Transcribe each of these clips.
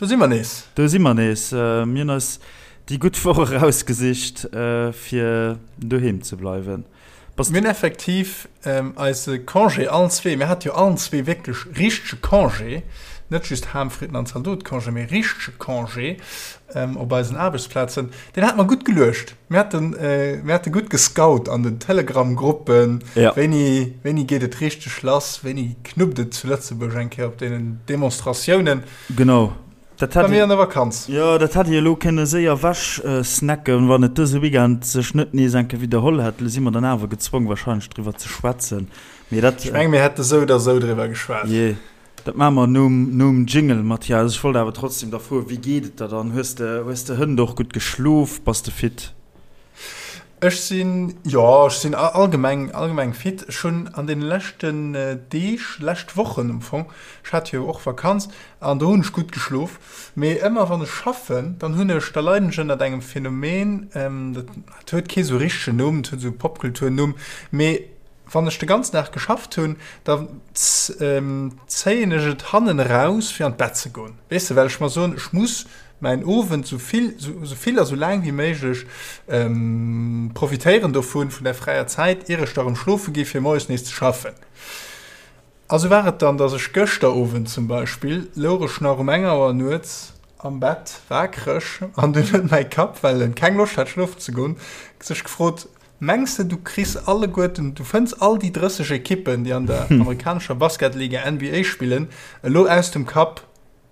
Do si mer nees. Do si mer nees. Mir hunn eis déi gutt Woch erausgesicht, fir doheem ze bleiwen. Bass Mir hunn effektiv eise Congé allen zwee, mir hate jo allen zwee wierklech richtege Congé, net just Ham, Fritten an Zaldot-Congé, mee richtege Congé op eisen Aarbechtsplazen. Deen hate mer gutt geluecht. Mir haten, mir hate gutt gescout an den Telegram-Gruppen, wéini, wéini geet et richteg lass, wéini knuppt et zu Lëtzebuerg eng Kéier op deenen Demonstratiounen. Genau. Dat hätt Bei mir an der Vakanz. Jo, dat hätt ee elo kënne séier ewech snacken, wann et dëse Weekend sech net nees eng Kéier widderholl hätt. Elo si mer dann awer gezwong wahrscheinlech driwwer ze schwätzen. Mee dat. Ech menge mir hätte sou oder sou driwwer geschwat. Jee, dat maache mer nom, nom Jingle, Mathias. Ech wollt awer trotzdem da froen, wéi geet et der dann? Hues de, hues de hënt och gutt geschlof? Bass de fit? Ech sinn, jo, ech sinn allgemeng, allgemeng fit. Ech hunn an deene leschten Deeg, lescht Wochen am Fong, ech hat jo och Vakanz an do hunn ech gutt geschlof, mee ëmmer wann ech schaffen, dann hunn ech, da leiden ech ënnert engem Phänomen, dat huet kee sou richtegen Numm, dat huet esou e Popkulturnumm, mee wann ech de ganzen Dag geschafft hunn, da zéien ech et hannen eraus fir an d'Bett ze goen, weess de, well ech mer soen, ech muss mäin Owend sou vill, sou vill a sou laang wéi méiglech profitéieren dovun, vun der fräier Zäit, ier ech da rëm schlofe gi fir moies nees ze schaffen. A sou war et dann, dass ech gëschter Owend zum Beispill, louch ech nach um eng Auer nuets am Bett waakreg an dunn huet mäi Kapp, well en keng Loscht hat schlofen ze goen, sech gefrot, Mengs de du kriss alleguerten, du fënns all déi 30 Ekippen, déi an der amerikanescher Basketliga NBA spillen, elo aus dem Kapp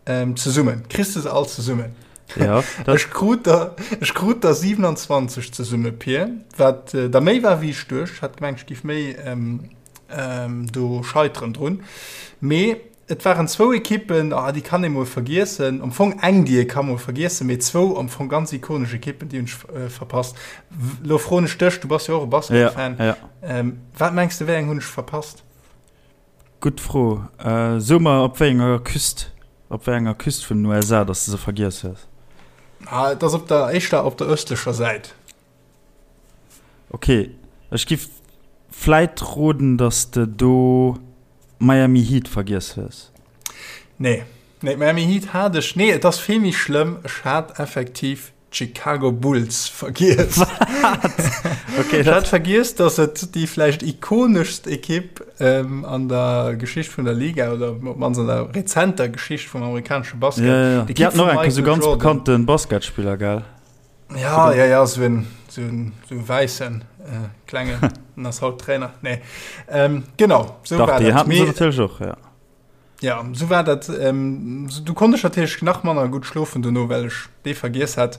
Ähm, zesummen. Kriss de se all zesummen? Ja. Ech krut der, ech krut der 27 zesumme, Pir, wat äh, der méi war wéi ech duecht. Hat gemengt, ech giff méi ähm, ähm, do scheiteren drun. Mee et waren zwou Ekippen, ah, déi kann ee mol vergiessen. Am Fong eng, déi ee ka mol vergiessen, mee zwou am Fong ganz ikonesch Ekippen, déi hunn ech äh, verpasst. Lo froen ech dech, du bass jo och e Basketfan. Ja, ja. Ähm, wat mengs de, wéi eng hunn ech verpasst? Gutt Fro. So mer op wéi enger Küst, op wéi enger Küst vun den USA dass de se vergiess hues. Ah, et ass op der, éischter op der ëstlecher Säit. Ok, ech giff vläit roden dass de do Miami Heat vergiess hues. Nee, nee, Miami Heat hat ech, nee, et ass vill méi schlëmm, ech hat effektiv D'Chicago Bulls vergiess. Wat? Okay, Ech hat vergiess, dass et déi vläicht ikoneschst Ekipp ähm, an der Geschicht vun der Liga oder op d'mannst an der rezenter Geschicht vum amerikanesche Basket. Ja, ja, ja. D'Ekipp Déi haten vum och enke sou Michael ganz Jordan. bekannte Basketspiller, gell? Ja, ja, ja, sou en, sou en, sou e wäissen äh, klengen, den ass haut Trainer. Nee. Ähm, genau, sou Dach, war déi dat. haten se Mee natierlech och, ja. Ja, sou war dat. Ähm, du konnt ech natierlech nach manner gutt schlofen dono, well ech dee vergiess hat.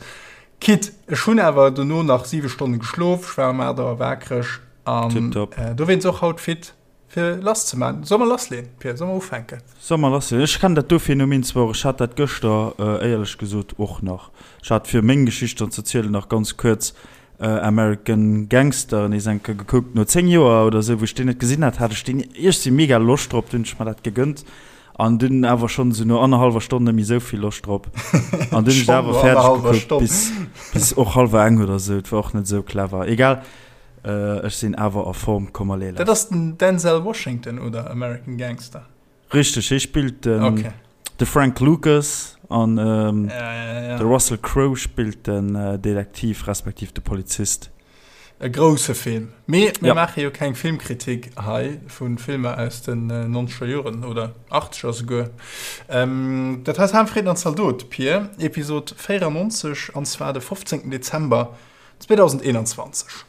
Quitte, ech hunn awer dono nach 7 Stonne geschlof, ech war um 8 Auer waakreg an Tipptopp. äh, dowéinst och haut fit fir lass ze man. Soll mer lassleen, Pir? Soll mer ufänken? Soll mer lassleen? Ech kennen dat do Phänomen zwar och, ech hat dat gëschter äh, éierlech gesot och nach. Ech hat fir meng Geschicht dann ze zielen nach ganz kuerz American Gangster nees eng Kéier gekuckt. No 10 Joer oder sou, wou ech deen net gesinn hat, hat ech deen iergsi mega Loscht drop. Dunn hunn ech mer dat gegënnt an dunn awer schonn esou no annerhallwer Stonn net méi esou vill Loscht drop. An dunn hunn ech awer fäerdeg gekuckt bis, bis och hallwer eng oder sou. Et war och net esou clever. Egal, ech sinn awer a Form. Komm allez lass. Dat ass den Denzel Washington, oder? American Gangster. Richteg, hie spillt den, okay. de Frank Lucas an ähm, ja, ja, ja. de Russell Crowe spillt den äh, Detektiv respektiv de Polizist. E grousse Film. Mee mir ja. maache jo keng Filmkritik hei vu Filmer aus den 90er äh, Joren oder 80er souguer. Ähm, dat heißt Ham, Frieden an Zaldot, Pier, Episod 94 an zwar de 15. Dezember 2021.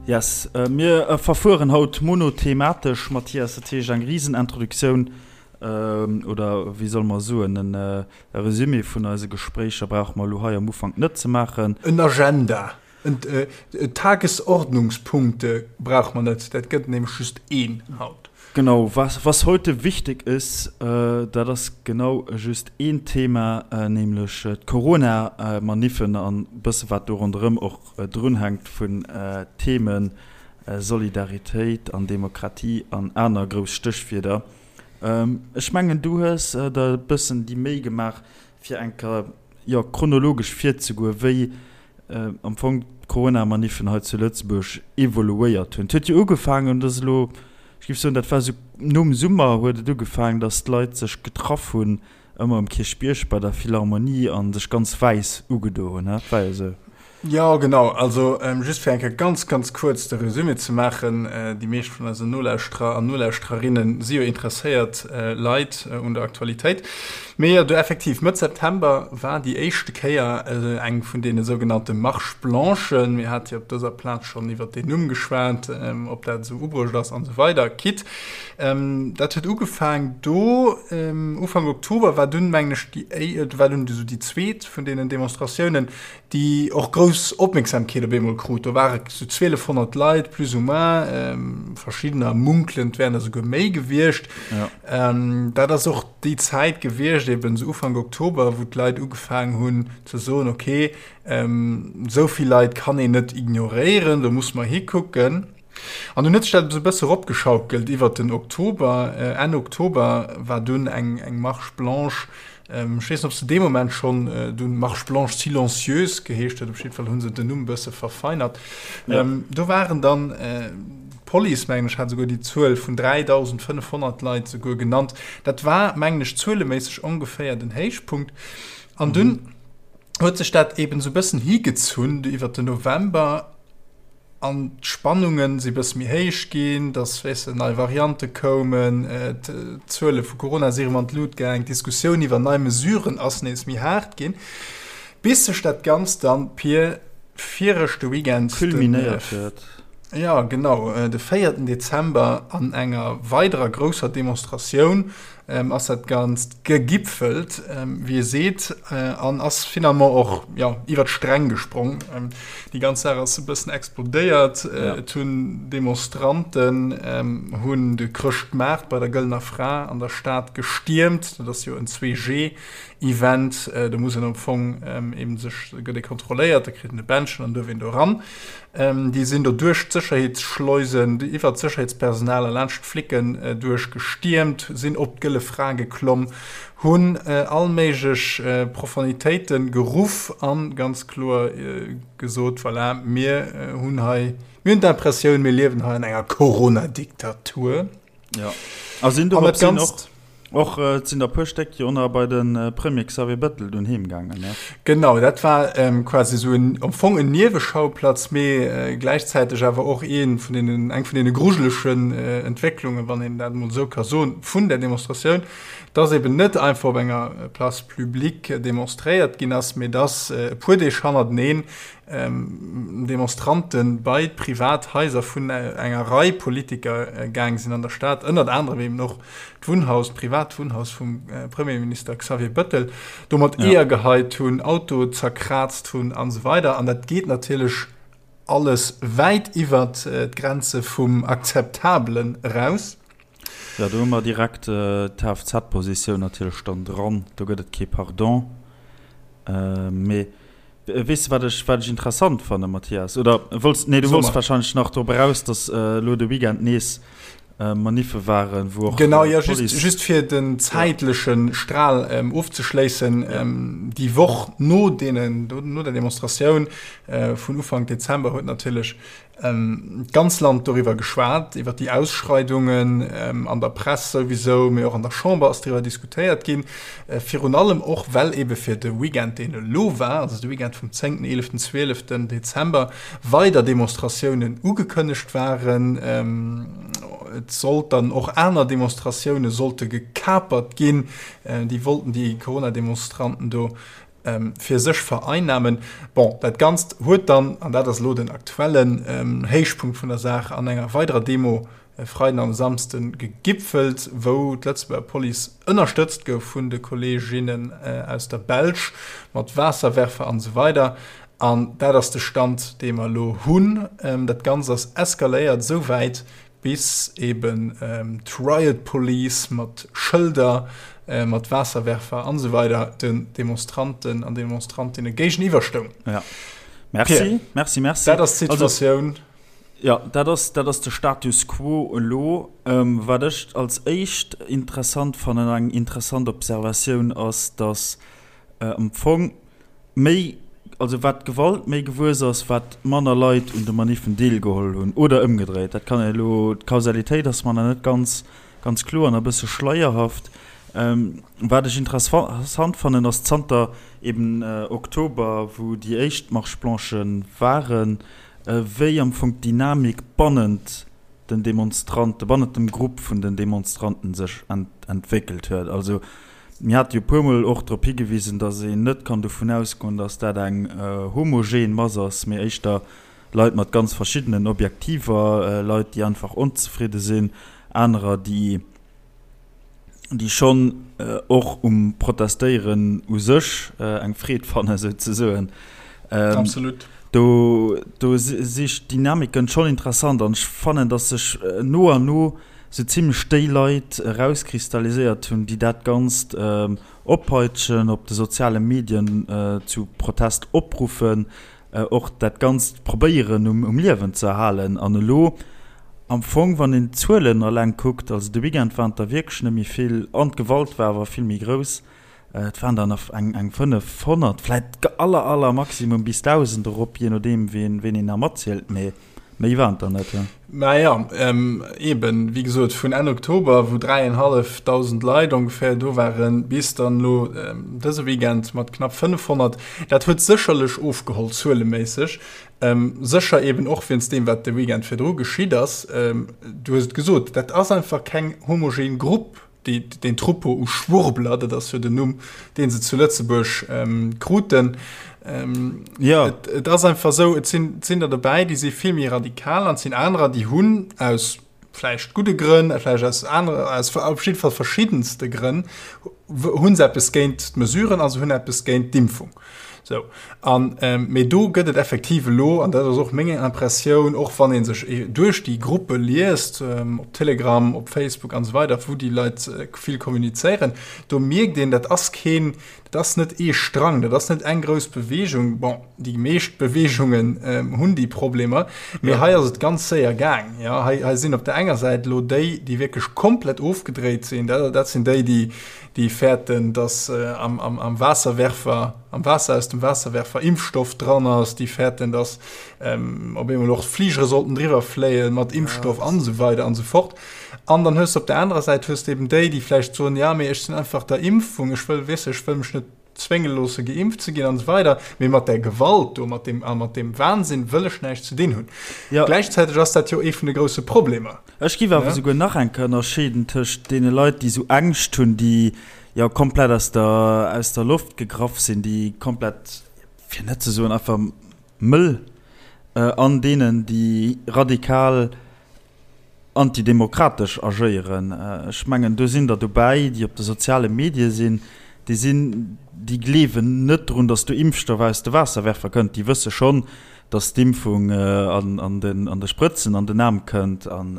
Yes, mir verfueren haut monothematesch, Mathias, dat heescht eng Risenintroduktioun, oder wéi solle mer soen, e Resumé vun eise Gespréicher brauche mer elo hei am Ufank net ze maachen. En Agenda. Tagesordnungspunkte brauche mer net, dat gëtt nämlech just een haut. Genau, was, was heute wichtig ist, dat ass genau just een Thema, nämlech d'Corona-Maniffen an e bësse wat do ronderëm och drunhänkt vun Themen, Solidaritéit an Demokratie an aner grouss Stéchwierder. Ech mengen, du hues der e bëssen déi Méi gemaach, fir eng Kéier, jo, chronologesch virzegoen, wéi am Fong d'Corona-Maniffen hei zu Lëtzebuerg evoluéiert hunn. Et huet jo ugefaangen, dat ass elo, ech géif soen, dat war esou nom Summer huet et ugefaangen, datt d'Leit sech getraff hunn ëmmer um Kierchbierg bei der Philharmonie a sech ganz wäiss ugedo hunn, dat war jo esou. Jo, genau. Also just fir eng Kéier ganz, ganz kuerz de Resumé ze maachen, Déi meescht vun eisen Nolauschterer an Nolauschtererinne si jo interesséiert Leit un der Aktualitéit. Mee jo, du effektiv, Mëtt September war déi éischte Kéier eng vun deene sougenannte Marches blanchen. Mir hate jo op dëser Plaz schonn iwwert deen Numm geschwat, ob dat esou ubruecht ass an esou weider. Quitte, dat huet ugefaang do. Ufank Oktober war dunn, mengen ech, déi, war dunn esou déi zweet vun deenen Demonstratiounen, déi och grouss Opmierksamkeet op eemol krut. Do ware sou 1200 Leit plus ou moins, verschiddener munkelen, et wären der souguer méi gewiescht. Ja. Dat ass och déi Zäit gewiescht, eben sou Ufank Oktober, wou d'Leit ugefaangen hunn ze soen, okay, esou vill Leit kann een net ignoréieren, do muss mer hikucken. An dunn huet sech dat esou e bësse eropgeschaukelt iwwert den Oktober. Enn Oktober war dunn eng eng Marche blanche, ech weess net, ob se dee Moment schonn dunn Marche blanche silencieuse geheescht huet, op jidde Fall hu se den Numm e bësse verfeinert. Do waren dann d'Police, mengen ech, hat esouguer déi Zuel vun 3.500 Leit esouguer genannt. Dat war, mengen ech, zueleméisseg ongeféier den Héichpunkt. An dunn huet sech dat eeben esou e bëssen higezunn iwwert den November. An d'Spannunge si bësse méi héich ginn, dass, weess de, nei Variante koumen, d'Zuele vu Corona si erëm an d'Lut gaang, d'Diskussioun iwwer nei Mesuren ass nees méi haart ginn, bis sech dat Ganzt dann, Pir, viregte Weekend, den, Kulminéiert huet. Jo, genau, de véierten Dezember an enger weiderer grousser Demonstratioun ass dat Ganzt gegipfelt, wéi ee seet, an ass finalement och, jo, iwwer d'Sträng gesprong. Déi ganz Saach ass e bëssen explodéiert. Et hunn Demonstranten hunn de Chrëschtmaart bei der Gëllener Fra an der Stad gestiermt. Dat ass jo en 2G-Event. Do muss een am Fong eben sech, gëtt ee kontrolléiert, da kritt een e Bändchen an duerf een do eran. Déi sinn do duerch d'Sécherheetsschleusen, iwwer d'Sécherheetspersonal a laanscht d'Flicken duerch gestiermt, sinn op d'Gëlle Fra geklomm, hunn all méiglech Profanitéite geruff a ganz kloer gesot, Voilà, mir hunn hei, mir hunn d'Impressioun, mir liewen hei an enger Corona-Diktatur. Ja. A sinn do sinn och, och äh, sinn der puer Stéck jo nach bei den äh, Premier Xavier Bettel dunn heem gaangen. Ne? Genau, dat war ähm, quasi so en, am Fong en Nieweschauplatz, mee äh, gläichzäiteg awer och een vun den, eng vun den grujelechen äh, Entwécklungen, wann een dat mol sou ka soen, vun der Demonstratioun, dass eben net einfach op enger Place publique demonstréiert ginn ass, mee dass äh, e puer Deeg hannerteneen Demonstrante bei d'privat Haiser vun enger Rei Politiker gaang sinn an der Stad, ënnert anerem eben och d'Wunnhaus, d'privat Wunnhaus vum Premierminister Xavier Bettel, do mat Eeër geheit hunn, Auto zerkraazt hunn an esou weider. An dat geet natierlech alles wäit iwwert d'Grenze vum Akzeptabelen eraus. Jo, do hu mer direkt d'Kfz-Positioun natierlech dann dran. Do gëtt et kee Pardon. Mee weess de, wat ech, wat ech interessant fannen, Mathias? Oder wollts, nee, du wollts wahrscheinlech nach drop eraus, datt elo de Weekend nees Maniffe waren, wou och Genau, jo, just, just fir den zäitleche Stral ofzeschléissen, Déi Woch no deenen, no der Demonstratioun vun Ufank Dezember huet natierlech D'ganz Land doriwwer geschwat, iwwer déi Ausschreidungen, an der Press souwisou, mee och an der Chamber ass driwwer diskutéiert ginn. Virun allem och, well ebe fir de Weekend, deen elo war, also de Weekend vum zéngten, eeleften, zwieleften Dezember, weider Demonstratiounen ugekënnegt waren. Et sollt dann och aner Demonstratioune sollte gekapert ginn. Déi wollten déi Corona-Demonstranten do fir sech vereinnamen. Bon, dat Ganzt huet dann, an dat ass elo den aktuellen Héichpunkt vun der Saach, an enger weiderer Demo e Freiden an e Samsden gegipfelt, wou d'Lëtzebuerger Police ënnerstëtzt gouf vun de Kolleeginnen aus der Belsch mat Waasserwerfer an esou weider. An dat ass de Stand, dee mer elo hunn. Dat Ganzt ass eskaléiert esou wäit, bis eben d'Riot Police mat Schëlder, mat Waasserwerfer an esou weider den Demonstranten an Demonstrantinne géigeniwwer stoung. Ja. Merci, Pierre, merci, merci. Dat ass d'Situatioun. Jo, dat ass, dat ass de Status quo elo. Wat ech als éischt interessant fannen, eng interessant Observatioun ass, datt am Fong méi, also wat d'Gewalt méi gewuess ass, wat manner Leit un de Maniffen deelgeholl hunn, oder ëmgedréit. Dat kann een elo, d'Kausalitéit ass mer nach net ganz, ganz kloer an e bësse schleierhaft. Wat ech interessant fannen, ass zanter eben Oktober, wou déi éischt Marche-blanchë waren, wéi am Fong d'Dynamik bannent den Demonstranten, bannent dem Grupp vun den Demonstranten sech entwéckelt huet. Also mir hate jo e puermol och drop higewisen, datt een net kann dovun ausgoen, datt dat eng homogen Mass ass, mee éischter Leit mat ganz verschiddenen Objektiver, Leit, déi einfach onzefridde sinn, anerer, déi déi schonn och um Protestéieren u sech eng Freed fannen, souzesoen. Absolut. Do, do si d'Dynamiken schonn interessant an ech fannen, datt sech no an no sou zimlech déi Leit erauskristalliséiert hunn, déi dat Ganzt oppeitschen, op de soziale Medien zu Protest opruffen, och dat Ganzt probéieren um Liewen ze erhalen. An elo am Fong, wann een d'Zuelen eleng kuckt, also de Weekend waren et der wierklech net méi vill an d'Gewalt war awer vill méi grouss, et waren der nach eng 500, vläit aller aller Maximum bis 1.000 erop, jee nodeem ween een nach matzielt, mee Méi waren et der net, jo. Naja, eben, wéi gesot, vun Enn Oktober, wou 3.500 Leit ongeféier do waren, bis dann elo dëse Weekend mat knapp 500. Dat huet sécherlech ofgeholl, zueleméisseg. Sécher eben och wéinst deem, wat de Weekend virdru geschitt ass. Du hues et gesot, dat ass einfach keng homogen Grupp. Déi, deen Troupeau u Schwurbler, dat ass jo den Numm, dee se zu Lëtzebuerg ähm, kruten. Ähm, ja. Et, et ass einfach sou, et sinn, et sinn der dobäi, déi si vill méi radikal an et sinn anerer, déi hunn aus vläicht gudde Grënn, vläicht aus anere, aus op jidde Fall verschiddenste Grënn, hu se eppes géint d'Mesuren a se hunn eppes géint d'Impfung. Sou, an, mee do gëtt et effektiv elo, an dat ass och meng Impressioun, och wann ee sech duerch déi Gruppe liest, op Telegram, op Facebook an esou weider, wou déi Leit vill kommunizéieren, do mierkt een, dat ass keen, dat ass net ee Strang, dat ass net eng grouss Beweegung. Bon, déi meescht Beweegungen hunn déi Problemer, mee hei ass et ganz séier gaang. Jo, hei, hei sinn op der enger Säit elo déi, déi wierklech komplett ofgedréit sinn, dat, dat sinn déi, déi, déi fäerten, dass am, am, am Waasserwerfer, am Waasser aus dem Waasserwerfer Impfstoff dran ass, déi fäerten, dass ähm, op eemol och d'Fligere sollten driwwer fléie mat Impfstoff ja, an esou weider an esou fort. An dann hues du op der anerer Säit hues du eben déi, déi vläicht soen, ja, mee ech sinn einfach der Impfung, ech wëll, weess ech wëll mech net zwénge loosse geimpft ze ginn an esou weider, mee mat där Gewalt do, mat deem, a mat deem Wahnsinn wëll ech näischt ze dinn hunn. Ja. Gläichzäiteg ass dat jo ee vun de grousse Problemer. Ech géif awer souguer nach eng Kéier ënnerscheeden tëscht deene Leit, déi esou Ängscht hunn, déi jo komplett aus der, aus der Loft gegraff sinn, déi komplett, fir net ze soen einfach mëll, an deenen, déi radikal antidemokratesch agéieren. Ech mengen, do sinn der dobäi, déi op de soziale Medie sinn, déi sinn, déi gleewen net drun, datt do Impfstoff aus de Waasserwerfer kënnt. Déi wësse schonn, datt d'Impfung an den, an de Sprëtzen an den Aarm kënnt an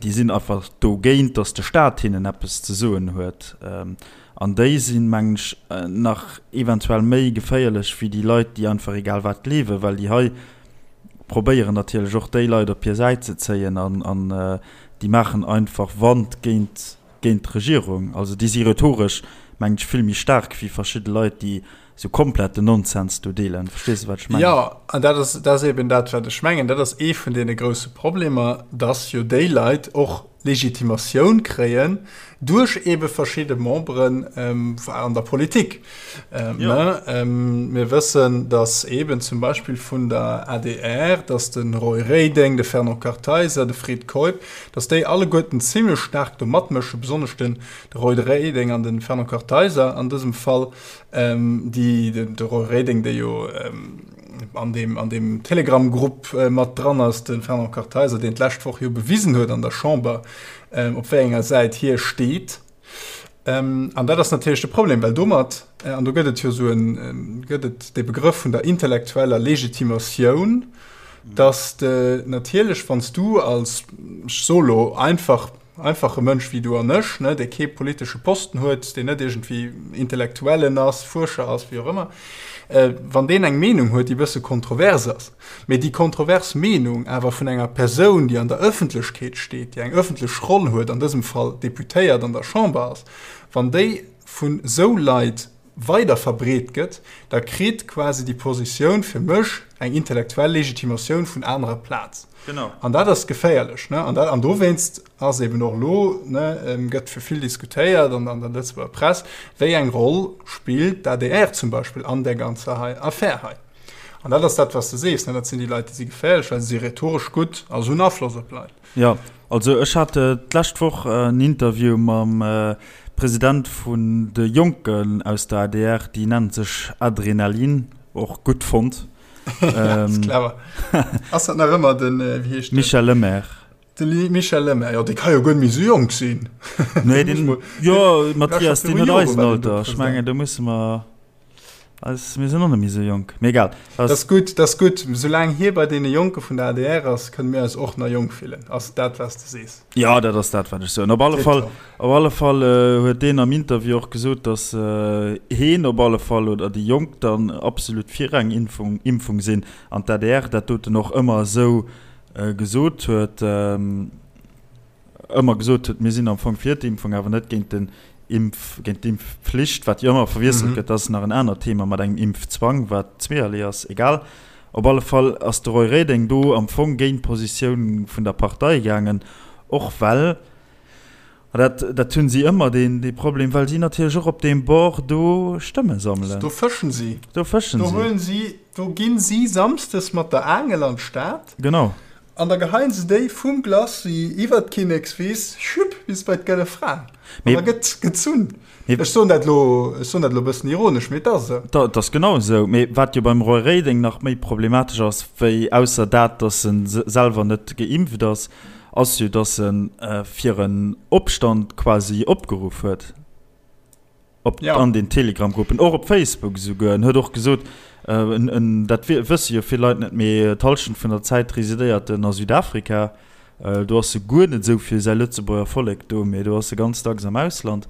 déi sinn einfach dogéint, datt de Staat hinnen eppes ze soen huet. An déi sinn, mengen ech, nach eventuell méi geféierlech wéi déi Leit, déi einfach egal wat gleewen, well déi hei probéieren natierlech och déi Leit op hir Säit ze zéien an an déi maachen einfach Wand géint géint d'Regierung. Also déi si rhetoresch, mengen ech, vill méi staark wéi verschidde Leit, déi sou komplett den Nonsens do deelen. Verstees de, wat ech mengen? Jo, an dat ass dat ass eben dat, wat ech mengen. Dat ass ee vun deene grousse Problemer, dass jo déi Leit och Legitimatioun kréien duerch ebe verschidde Memberen an der Politik. Mir wëssen, datt eben zum Beispill vun der adr, datt de Roy Reding, de Fernand Kartheiser, de Fred Keup, datt déi alleguerten zimlech staark do matmëschen, besonnesch den Roy Reding an de Fernand Kartheiser an dësem Fall, déi, de Roy Reding, dee jo an deem, an deem Telegram-Grupp mat dran ass, de Fernand Kartheiser, deen d'lescht Woch jo bewisen huet an der Chamber, op wéi enger Säit hie steet. An dat ass natierlech de Problem, well domat, an do gëtt et jo esou en, gëtt et dee Begrëff vun der intellektueller Legitimatioun, dass de natierlech, wann s du als, ech soe lo einfach. einfache Mënsch wéi du an ech, ne, dee kee politesche Posten huet, deen net iergendwéi Intellektuellen ass, Fuerscher ass, wéi och ëmmer, wann deen eng Meenung huet, déi e bësse kontrovers ass, mee déi kontrovers Meenung awer vun enger Persoun, déi an der Ëffentlechkeet steet, déi eng ëffentlech Roll huet, an dësem Fall Deputéiert an der Chamber ass, wann déi vun esou Leit weider verbreet gëtt, da kritt quasi déi Positioun fir mech eng intellektuell Legitimatioun vun anerer Plaz. Genau. An dat ass geféierlech. Ne? An, dat, an dowéinst ass eben och elo, ne, gëtt fir vill diskutéiert an an der Lëtzebuerger Press, wéi eng Roll spillt d'ADR zum Beispill an där ganzer hei Affär hei. An dat ass dat, wat s de sees, ne? Dat sinn déi Leit, déi si geféierlech, well se si rhetoresch gutt a se hunn Afloss op Leit. Jo, also ech hat d'lescht Woch en Interview mam President vun de Jonken aus der adr, déi nennen sech Adrenalin, och gutt fonnt. Ass clever. Ass dat nach ëmmer den, wéi heescht den? Michel Lemaire. De Michel Lemaire, jo dee ka jo guer net méi esou jonk sinn. Nee, deen, jo Mathias, deen huet eisen Alter, ech mengen do musse mer. Eis, mir sinn och net méi esou jonk, mee egal. Dat ass gutt, dat ass gutt. Soulaang hie bei deene Jonke vun der adr ass, kënne mir eis och nach jonk fillen. Ass dat, wat s de sees? Jo, dat ass dat, wat ech soen. Op alle Fall, op alle Fall huet deen am Interview och gesot, datt heen op alle Fall oder déi Jonk dann absolut fir eng Impfung, Impfung sinn an d'ADR dat doten och ëmmer esou gesot huet. ëmmer gesot huet, mir sinn am Fong fir d'Impfung, awer net géint den Impf, géint d'Impfpflicht, wat jo ëmmer verwiesselt gëtt, dat ass nach en anert Thema mat engem Impfzwang, wat zweeërlee ass, egal. Op alle Fall ass de Roy Reding do am Fong géint d'Positioun vun der Partei gaangen, och well, a dat, dat hunn si ëmmer deen, dee Problem, well si natierlech och op deem Bord do Stëmme sammelen. Do fëschen si. Do fëschen si. Do huelen si, do ginn si samsdes mat der Aangel an d'Stad. Genau. An da geheien se déi vum Glacis iwwert d'Kinnekswiss, schüpp, bis bei d'Gëlle Fra. An da gëtt gezunn. Ech soen dat elo, ech soen dat elo e bëssen ironesch, mee et ass esou. Dat ass genau esou. Mee wat jo beim Roy Reding nach méi problematesch ass, wéi ausser dat, datt e selwer net geimpft ass, ass jo, datt e fir en Opstand quasi opgeruff huet. Op ja. an den Telegram-Gruppen, och op Facebook esouguer. En huet och gesot, äh, en, en, dat wësse jo vill Leit net, mee d'Hallschent vun der Zäit residéiert en a Südafrika. Äh, do ass e guer net esou fir säi Lëtzebuerger Vollek do, mee do ass e ganz dacks am Ausland.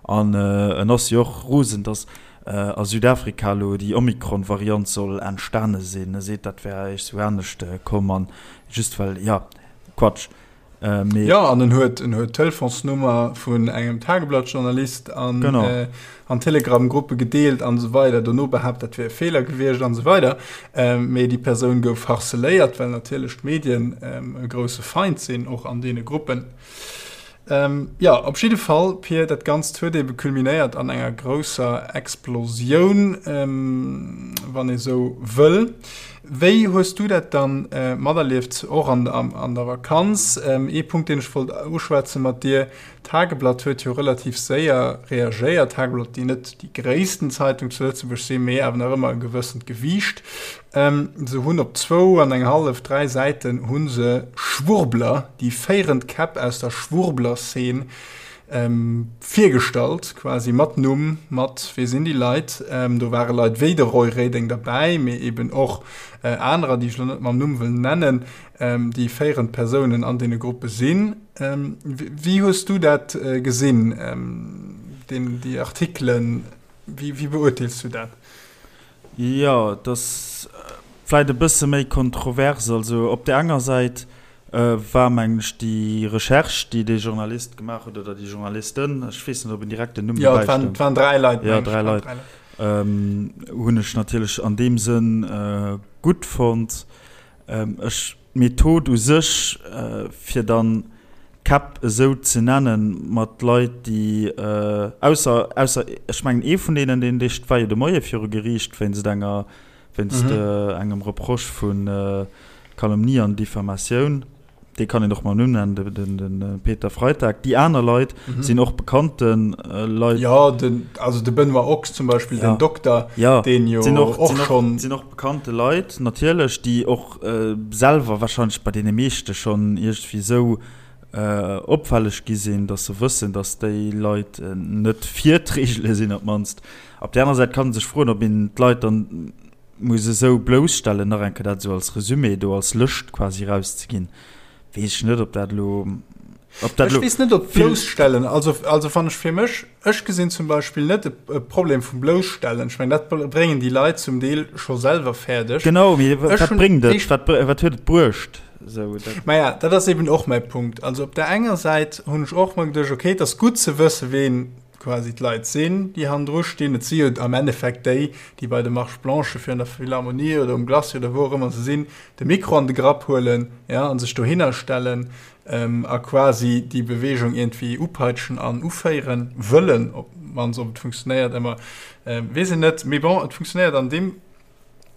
An äh, en ass jo och rosen, datt äh, a Südafrika elo déi Omikron-Variant soll entstane sinn. E seet, dat wär eréischt sou anescht komm an just well, ja, Quatsch. Äh, ja an en huet en huet Telefonsnummer vun engem Tageblattjournalist an äh, an Telegramgruppe gedeelt an so weider dono behaupt dat wär e Feeler gewiescht an so weider äh, mee déi Persoun gouf harceléiert, well natierlech d'Medien ähm, e grousse Feind sinn och an deene Gruppen. Ähm, ja op jidde Fall Pir dat Ganzt huet ebe kulminéiert an enger grousser Explosioun ähm, wann ee sou wëll. Wéi hues du dat dann materlieft, och an der Vakanz? Ee Punkt, deen ech wollt uschwätze mat dir, D'Tageblatt huet jo relativ séier reagéiert. D'Tageblatt, déi net déi gréissten Zeitung zu Lëtzebuerg sinn, mee awer nach ëmmer e gewëssent Gewiicht. Se hunn op zwou an eng hallef, dräi Säiten hu se Schwurbler, déi féierend Käpp aus der Schwurbler-Szene, Virgestallt, quasi mat Numm, mat wee sinn déi Leit. Do ware Leit wéi de Roy Reding derbäi, mee eben och anerer, déi ech elo net mam Numm wëll nennen, déi féierend Persounen an deene Gruppe sinn. Wéi hues du dat gesinn, déi Artikelen? Wéi beurteels du dat? Jo, et ass vläit e bësse méi kontrovers. Also op där enger Säit war, mengen ech, déi Recherche, déi dee Journalist gemaach huet, oder déi Journalisten, ech weess net, ob en direkt den Numm dobäi stoung. Jo, et waren dräi Leit, mengen ech. Jo, dräi Leit. Hunn ech natierlech an deem Sënn gutt fonnt. Ech, d'Method u sech, fir dann d'Käpp esou ze nennen, mat Leit, déi, ausser, ausser, ech mengen, ee vun deenen, deen, dee war jo de Moie viru Geriicht wéinst enger, wéinst engem Reproche vu Calomnie an Diffamatioun. Dee kann een och mam Numm nennen, de Peter Freitag. Déi aner Leit sinn och bekannte Leit. Jo, den, also de Benoît Ochs zum Beispill, den Dokter, deen jo och schonn. Sinn och bekannte Leit natierlech, déi och selwer warscheinlech bei deene meeschte schonn iergendwéi esou opfälleg gi sinn, datt se wëssen, datt déi Leit net fir d'Reegele sinn op d'mannst. Op där aner Säit kann ee sech froen, ob een d'Leit dann muss esou blousstellen, nach eng Kéier dat esou als Resumé do, als Lëscht quasi erauszeginn, weess ech net, ob dat elo. Ob dat Ech lo weess net, ob vill. Blousstellen, also, also wann ech fir mech, ech gesinn zum Beispill net e, e Problem vum Blousstellen. Ech mengen, dat bréngen déi Leit zum Deel scho selwer fäerdeg. Genau, mee Ech wat hunn bréngt et? éischt. Wat, wat huet et bruecht? Esou, dat. Maja, dat ass eben och mäi Punkt. Also op där enger Säit hunn ech och mer geduecht, okay, et ass gutt ze wëssen, ween quasi d'Leit sinn, déi hannendru stinn. Et si jo am Endeffekt déi, déi bei de Marches blanches virun der Philharmonie oder um Glacis oder wou och ëmmer se sinn, de Mikro an de Grapp huelen, ja, a sech dohinner stellen a quasi déi Beweegung iergendwéi upeitschen an uféieren wëllen. Op d'mannst, ob et funktionéiert ëmmer, weess een net. Mee bon, et funktionéiert an deem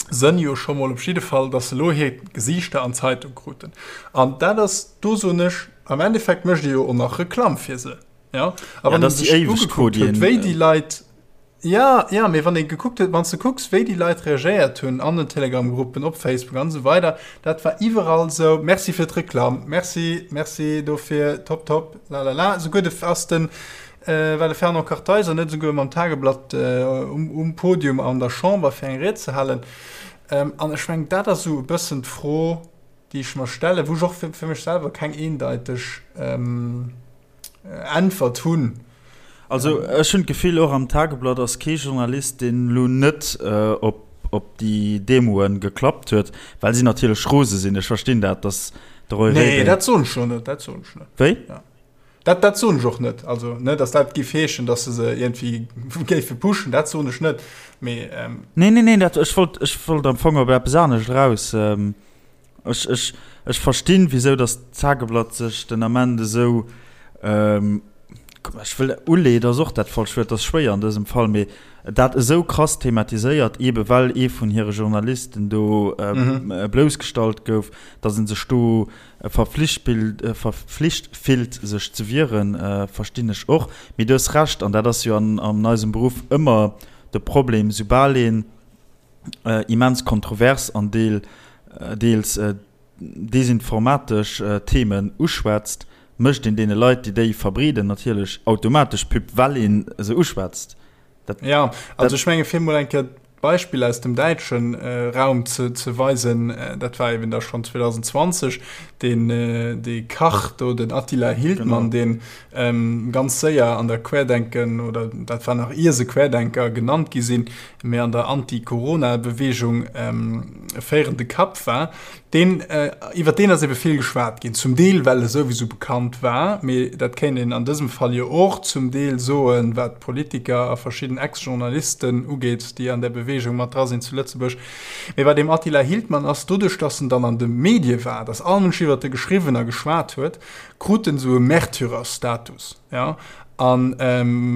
Sënn jo scho mol op jidde Fall, datt se elo hir Gesiichter an d'Zeitung kruten. An dat ass, do soen ech, am Endeffekt mécht ee jo och nach Reklamm fir se. Ja, a wann ja, een sech ugekuckt huet, wéi déi Leit, ja, ja, mee wann ee gekuckt huet, wann s de kucks, wéi déi Leit reagéiert hunn an den Telegram-Gruppen, op Facebook an esou weider, dat war iwwerall esou, Merci fir d'Reklamm, merci, merci dofir, top, top, lalala. Esouguer de, ass den, war de Fernand Kartheiser net esouguer mam Tageblatt um, um Podium an der Chamber fir eng Ried ze halen. An ech mengen, dat ass esou e bëssen d'Fro, déi ech mer stellen, wou ech och fir, fir mech selwer keng eendeiteg, Äntwert hunn. Also ech hunn d'Gefill, och am Tageblatt ass kee Journalist, deen elo net op op déi Demoe geklappt huet, well si natierlech rose sinn. Ech verstinn dat, datt de Roy Reding. Nee, dat soen ech jo net, dat soen ech net. Wéi? Ja. Dat, dat soen ech och net. Also, ne, datt dat géif heeschen, datt se se iergendwéi géife pushen, dat soen ech net. Mee. Nee, nee, nee, dat, ech wollt, ech wollt am Fong op eppes anescht eraus. Ech, ech, ech verstinn, wisou datt d'Tageblatt sech den Ament esou, ech wëll, uleet ass och dat falscht Wuert, dat ass schwéier an dësem Fall, mee dat esou krass thematiséiert, eebe well ee vun hire Journalisten do bloussgestallt gouf, datt ee sech do verflicht verflicht fillt, sech ze wieren, verstinn ech och. Mee du hues Recht, an dat ass jo an, an eisem Beruff ëmmer de Problem, soubal een, immens kontrovers an deels desinformatesch Themen uschwätzt, mécht een deene Leit, déi déi verbreeden, natierlech automatesch Pub, well ee se uschwätzt. Dat, ja, also ech menge fir mol eng Kéier d'Beispill aus dem däitsche Raum ze weisen, dat war eben da schonn 2020, deen dee Kach do, den Attila Hildmann, deen ganz séier an der Querdenken, oder dat war nach ier se Querdenker genannt gi sinn, mee an der Anti-Corona-Beweegung e féierende Kapp war, deen, iwwer deen ass ebe vill geschwat ginn, zum Deel well e souwisou bekannt war, mee dat kéint een an dësem Fall jo och zum Deel soen, wat Politiker a verschidden Ex-Journalisten ugeet, déi an där Beweegung mat dra sinn zu Lëtzebuerg. Mee bei deem Attila Hildmann ass, doduerch datt en dann an de Medie war, datt all Mënsch iwwert e geschriwwen a geschwat huet, krut en esou e Märtyrerstatus, jo, an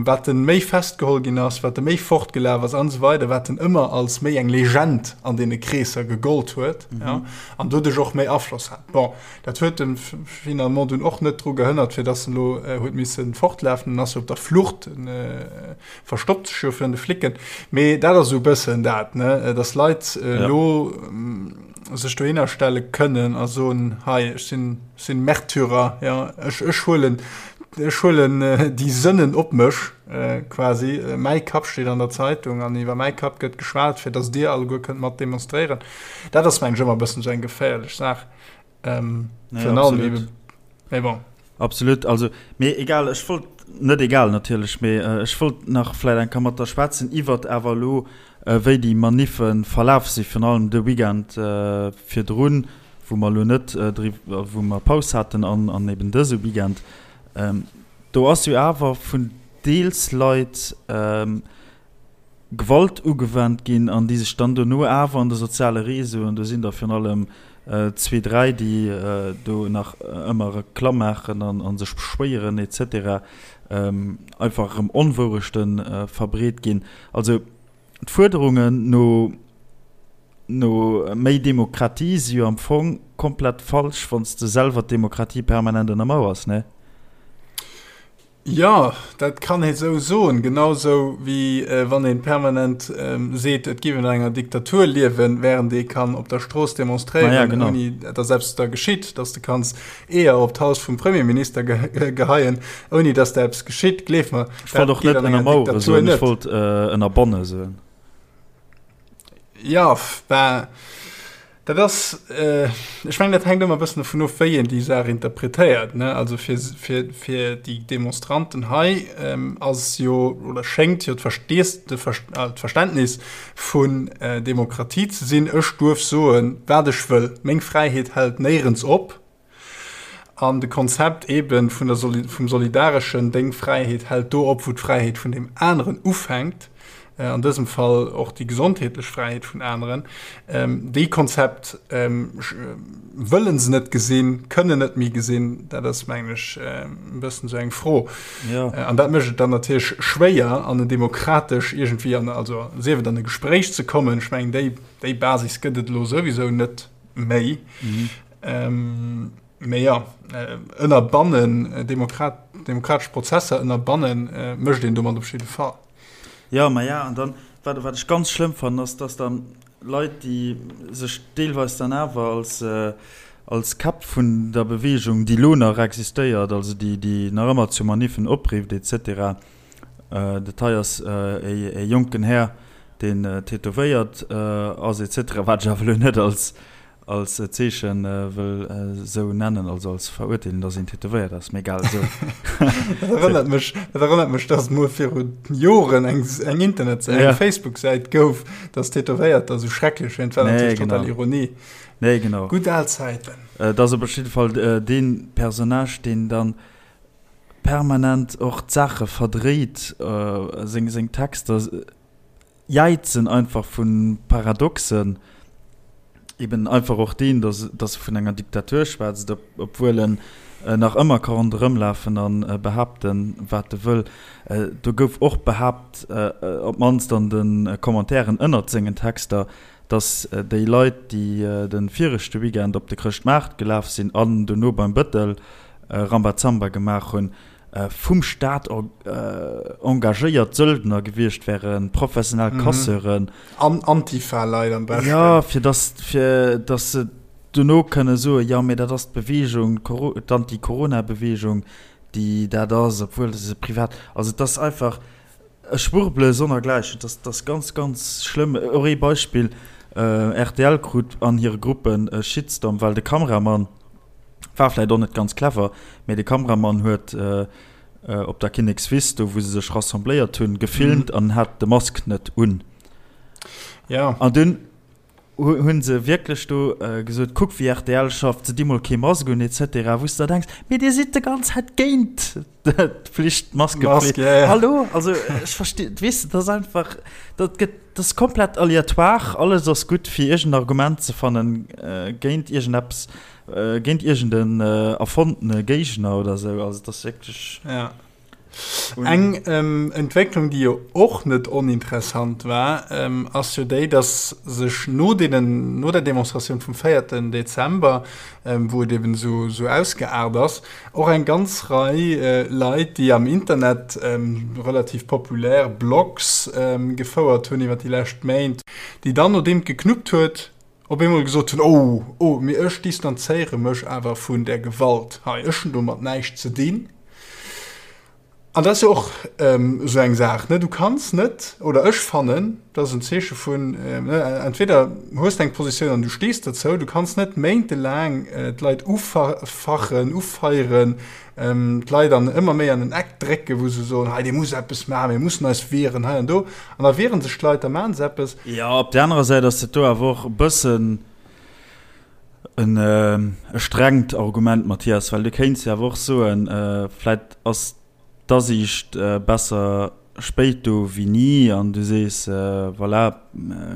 wat en méi festgeholl ginn ass, wat e méi fortgelaf ass an esou weider, wat en ëmmer als méi eng Legend an deene Kreesser gegollt huet, jo, an doduerch och méi Afloss hat. Bon, dat huet en finalement dunn och net dru gehënnert, fir dass en elo huet misse fortlafen, en ass jo op der Flucht, en verstoppt sech jo virun de Flicken, mee dat ass esou e bëssen dat, ne, dass Leit elo sech dohinner stelle kënnen a soen, hei, ech sinn, Sinn Märtyrer, ja. Ech, ech huelen, ech huelen déi Sënnen op mech, quasi. Mäi Kapp steet an der Zeitung an iwwer mäi Kapp gëtt geschwat, fir datt dir alleguer kënnt mat demonstréieren. Dat ass, mengen ech, ëmmer e bëssen esou eng geféierlech Saach. Virun allem ebe, mee bon. Absolut, also, mee egal, ech wollt, net egal natierlech, mee ech wollt nach vläit eng Kéier mat der schwätzen iwwert awer elo, wéi déi Maniffe verlaf si, virun allem de Weekend virdrun, wou mer elo net driwwer, wou mer Paus haten an an eben dëse Weekend. Do ass jo awer vun deels Leit Gewalt ugewennt ginn an déi sech dann dono awer an de soziale Réseauen, do sinn der virun allem zwee, dräi, déi do nach ëmmer Reklamm maachen an a sech beschwéieren et cetera, einfach erëm Onwourechte verbreet ginn. Also d'Fuerderungen no no méi Demokratie si jo am Fong komplett falsch, wann s de selwer d'Demokratie permanent ënnermauers, ne? Jo, dat kann ee sou soen. Genau sou wéi wann ee permanent seet, et géif een an enger Diktatur liewen, wärend ee kann op der Strooss demonstréieren, ouni datt eppes da geschitt, datt s de kanns Eeër op d'Haus vum Premierminister geheien, ouni datt der eppes geschitt. Gleef mer, dat geet an enger Diktatur net. Ech wollt och net ënnermauere soen, ech wollt ënnerbanne soen. Jo, bah. Dat ass, ech mengen, dat hänkt ëmmer e bëssen dovun of, wéi een déi Saach interpretéiert, ne? Also fir, fir, fir déi Demonstranten hei ass jo oder schéngt jo d'Verständnis vun Demokratie ze sinn, Ech duerf soen, wat ech wëll, meng Fräiheet hält néierens op. An de Konzept eebe vun der vum solidareschen, deng Fräiheet hält do op, wou d'Fräiheet vun deem aneren ufänkt, an dësem Fall och déi gesondheetlech Fräiheet vun aneren, déi Konzept wëlle se net gesinn, kënnen net méi gesinn. Dat ass, mengen ech, e bëssen esou eng Fro. An dat mécht et dann natierlech schwéier, an en demokratesch iergendwéi an, also sief et an e Gespréich ze kommen. Ech mengen, déi, déi Basis gëtt et elo souwisou net méi. Mee jo, ënnerbannen, Demokrat, demokratesch Prozesser ënnerbannen, mécht een domat op jidde Fall. Jo, ma ja, an dann, wat, wat ech ganz schlëmm fannen, ass, dass dann Leit, déi sech deelweis dann awer als, als Käpp vun der Beweegung, déi elo nach existéiert, also déi, déi nach ëmmer zu Maniffen oprifft et cetera, dat hei ass e jonken Här, deen tätowéiert ass et cetera, wat ech awer elo net als, als Zeechen wëll esou nennen, also als Verurteelung, dass een tätowéiert ass, mee egal, esou. Dat erënnert mech, dat erënnert mech, dass et mol viru Joren eng, eng Internetsäit, eng Facebook-Säit gouf, dass Tätowéierter esou schrecklech wären. Dat war natierlech total Ironie. Nee, genau. Gutt al Zäiten. Et ass op jidde Fall dee Personnage, deen dann permanent och d'Saache verdréit, seng, seng Texter. Jäizen einfach vu Paradoxen, eben einfach och deen, dass dass e vun enger Diktatur schwätzt, obwuel en nach ëmmer ka ronderëmlafen a behaapten, wat e wëll. Do gouf och behaapt, op d'mannst an de Commentairen ënnert sengen Texter, dass déi Leit, déi de viregte Weekend op de Chrëschtmaart gelaf sinn an dono beim Bëttel Rambazamba gemaach hunn, vum Staat engagéiert Söldner gewiescht wären, professionell Casseuren. An Antifa-Leit am beschten. Jo, fir dass, fir dass se dono kënne soen, jo, mee dat ass d'Beweegung, d'Anti-Corona-Beweegung, déi dat ass, obwuel se privat. Also et ass einfach e Schwurbele sonnergläichen. Et ass, et ass ganz, ganz schlëmm. Och ee Beispill, rtl krut an hire Gruppen e Shitstorm, well de Kameramann, War vläit och net ganz clever, mee de Kameramann huet op der Kinnekswiss, do wou se sech rassembléiert hunn, gefilmt an hat de Mask net un. Ja. An dunn hu se wierklech do gesot, kuck wéi rtl schafft, se di mol kee Mask un et cetera, wou s de der denks, mee dir sidd de ganz Zäit géint d'Pflicht, d'Maskepflicht. Mask, ja, ja. Hallo? Also ech versti, weess de, dat ass einfach, dat gëtt, dat ass komplett aleatoire, alles ass gutt fir iergend Argument ze fannen géint iergendeppes, géint iergend en erfonntene Géigner oder esou. Also et ass wierklech. Ja. Eng Entwécklung, déi jo och net oninteressant war, ass jo déi, dass sech no deenen, no der Demonstratioun vum véierten Dezember, wou et eben esou, esou ausgeaart ass, och eng ganz Rei Leit, déi am Internet relativ populär Blogs gefouert hunn iwwer déi lescht Méint, déi dann, nodeem et geknuppt huet, op eemol gesot hunn, Oh, oh, mee ech distanzéiere mech awer vun där Gewalt hei, ech hunn domat näischt ze dinn. An dat ass jo och esou eng Saach, ne? Du kanns net, oder ech fannen, dat ass en Zeeche vun, ne, entweder hues de eng Positioun an du stees dozou, du kanns net méintelaang d'Leit ufachen, ufeieren, d'Leit an ëmmer méi an en Eck drécken, wou se soen, hei dir musst eppes maachen, mir mussen eis wieren, hei an do. An da wiere sech d'Leit, da maache se eppes. Jo, op där anerer Säit ass dat do awer och e bëssen en e strengt Argument, Mathias, well du kéints jo awer och soen, vläit ass d'Asiicht besser spéit do wéi ni an du sees, voilà,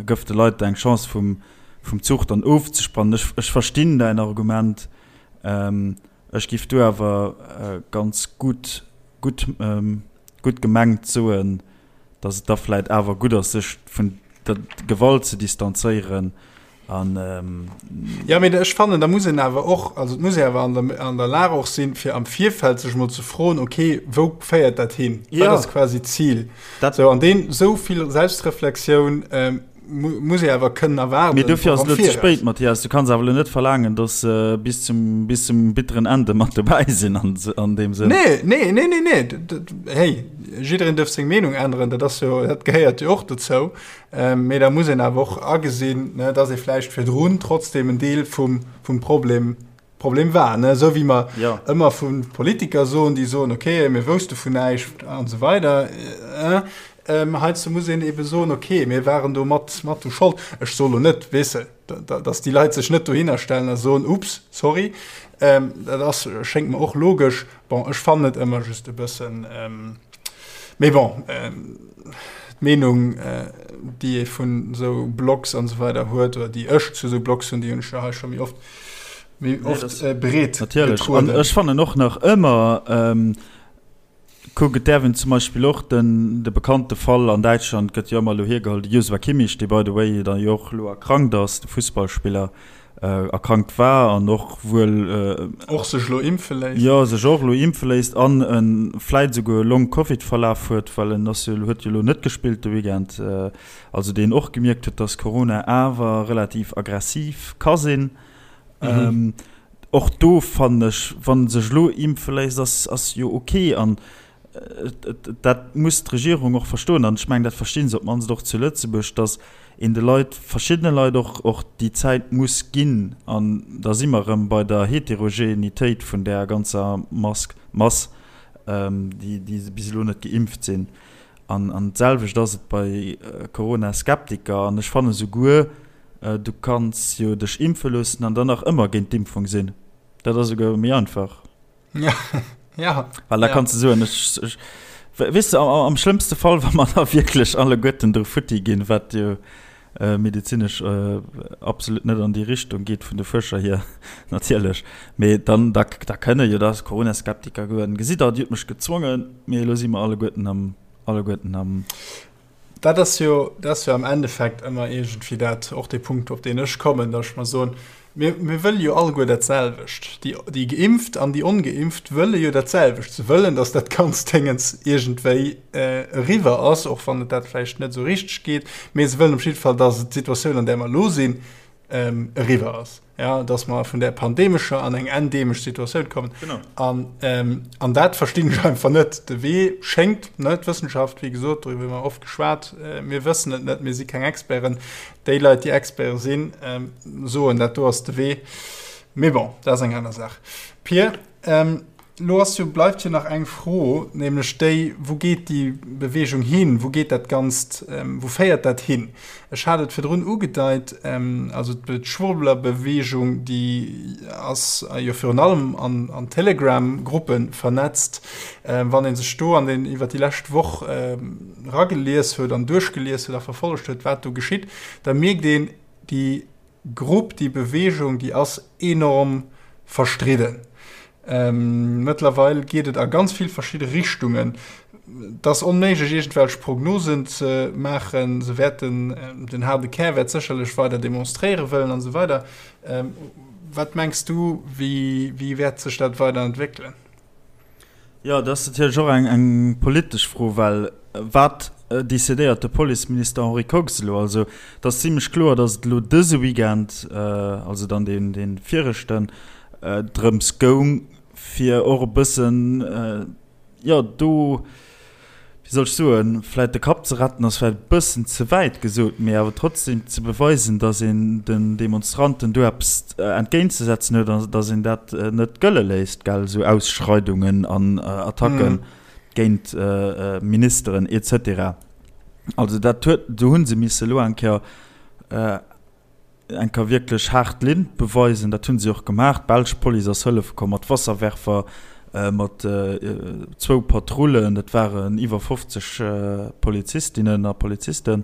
gëff de Leit eng Chance vum vum Zuch dann ofzespannen. Ech ech verstinn däin Argument, ech giff do awer ganz gutt gutt gutt gemengt soen, datt et da vläit awer gutt ass, sech vun der Gewalt ze distanzéieren An, ähm, Ja, mee ech fannen, da muss een awer och, also et muss ee awer an der, an der Lag och sinn, fir am Virfeld sech emol ze froen, okay, wou féiert dat hin? Wat Ja. ass quasi d'Zil? Dat- Sou, an deen, esou vill Selbstreflexioun, ähm, Muss ee awer kënnen erwaarden. Mee dofir ass et elo ze spéit, Mathias. Du kanns awer elo net verlaangen, datt se bis zum, bis zum bitteren Ende mat dobäi sinn an, an deem Sënn. Nee, nee, nee, nee, nee. Hey, jiddereen duerf seng Meenung änneren, dat ass jo, dat gehéiert jo och dozou. Mee da muss een awer och agesinn, ne, datt ee vläicht virdrun trotzdem en Deel vum, vum Problem Problem war, ne? Esou wéi mer ja. ëmmer vu Politiker soen, déi soen, okay, mir wousste vun näischt an esou weider. Äh, ähm, heiansdo muss een ebe soen, okay, mir waren do mat, mat u Schold. Ech soe lo net, weess de, datt déi Leit sech net dohinner stellen a soen, ups, sorry. Ähm, dat ass, schéngt mer och logesch. Bon, ech fannen et ëmmer just e bëssen, ähm, mee bon, ähm, d'Meenung, äh, déi ee vun esou Blogs an esou weider huet, oder déi ech zu esou Blogs hunn, déi hunn ech jo hei scho méi oft méi oft äh, breet Natierlech. An ech fannen och nach ëmmer, ähm, kuck, et däerf een zum Beispill och den, de bekannte Fall an Däitschland gëtt jo ëmmer elo hiergeholl, de Joshua Kimmich, dee by the way da jo och elo erkrankt ass, de Fussballspiller, äh, erkrankt war an och wuel, äh, Och sech elo impfe léisst. Jo, sech och elo impfe léisst an e vläit esouguer e Long-Covid-Verlaf huet, well en ass jo, huet jo elo net gespillt de Weekend, äh, also deen och gemierkt huet, dass Corona awer relativ aggressiv ka sinn. Mhm. Och do fannen ech, wann sech elo impfe léisst, ass, ass jo ok. An dat muss d'Regierung och verstoen, an ech mengen, dat versti se op d'mannst och zu Lëtzebuerg, datt een de Leit, verschiddene Leit och, och déi Zäit muss ginn. An da si mer erëm bei der Heterogenitéit vun där ganzer Mask, Mass, déi, déi bis elo net geimpft sinn. An, an d'selwecht ass et bei Corona-Skeptiker. An ech fanne souguer, Du kanns jo dech impfe loossen an dann nach ëmmer géint d'Impfung sinn. Dat ass esouguer méi einfach. Ja, ja. Well da kanns du soen, ech, ech, weess de, am, am schlëmmste Fall, wa mer da wierklech alleguerten dru futti ginn, wat jo medezinesch absolut net an déi Richtung geet vun de Fuerscher hier natierlech, mee dann, da, da kënne jo da Corona-Skeptiker goen, Gesitt der, Dir hutt mech gezwongen, mee elo si mer alleguerten am, alleguerten am. Dat ass jo, dat ass jo am Endeffekt ëmmer iergendwéi dat, och dee Punkt, op deen ech kommen, datt ech mer soen, mir, mir wëlle jo alleguer dat selwecht. Déi, déi Geimpft an déi Ongeimpft wëlle jo dat selwecht. Se wëllen, datt dat ganzt Déngens iergendwéi eriwwer ass, och wann et dat vläicht net esou richteg geet, mee se wëllen op jidde Fall, datt d'Situatioun, an där mer elo sinn, eriwwer ass, ja, dass mer vun där pandemescher an eng endemesch Situatioun kommen. Genau. An, ähm, an dat verstinn ech einfach net. De Wee schéngt, ne, d'Wëssenschaft, wéi gesot, doriwwer hu mer oft geschwat, äh, mir wëssen et net, mir si keng Experten. Déi Leit, déi Experte sinn, ähm, soen, dat do ass de Wee. Mee bon, dat ass eng aner Saach. Pir, ähm, Lo ass jo, bleift jo nach eng Fro, nämlech déi, Wou geet déi Bewegung hin? Wou geet dat Ganzt, wou féiert dat hin? Ech hat et virdrun ugedeit, also d'Schwurblerbewegung, déi ass jo virun allem an Telegram-Gruppe vernetzt. Wann ee sech do an den, iwwer déi lescht Woch eragelies huet an duerchgelies huet a verfollegt huet, wat do geschitt, da mierkt een, déi Grupp, déi Bewegung, déi ass enorm verstridden. Mëttlerweil geet et a ganz vill verschidde Richtungen. Et ass onméiglech, iergendwelch Prognosen ze maachen. Se wäerten, den haarde Kär wäert sécherlech weider demonstréiere wëllen an esou weider. Wat mengs du, wéi, wéi wäert sech dat weider entwéckelen? Jo, dat ass natierlech och eng, eng politesch Fro, well wat decidéiert de Policeminister Henri Kox elo? Also et ass zimlech kloer, datt et elo dëse Weekend, also dann deen, dee viregten, drëms goung, fir och e bëssen, jo, do, wéi soll ech soen, vläit de Kapp ze retten ass vläit e bëssen ze wäit gesot, mee awer trotzdem ze beweisen, datt een den Demonstranten do eppes entgéintzesetzen huet an datt een dat net gëlle léisst, gell, esou Ausschreidungen an Attacke géint Ministeren et cetera. Also dat huet, do hu se misse elo eng Kéier, Eng Kéier wierklech haart Linn beweisen. Dat hunn si och gemaach. D'belsch Police ass hëllefe komm mat Wasserwerfer, mat zwou Patrullen. Dat waren iwwer 50 Polizistinnen a Polizisten.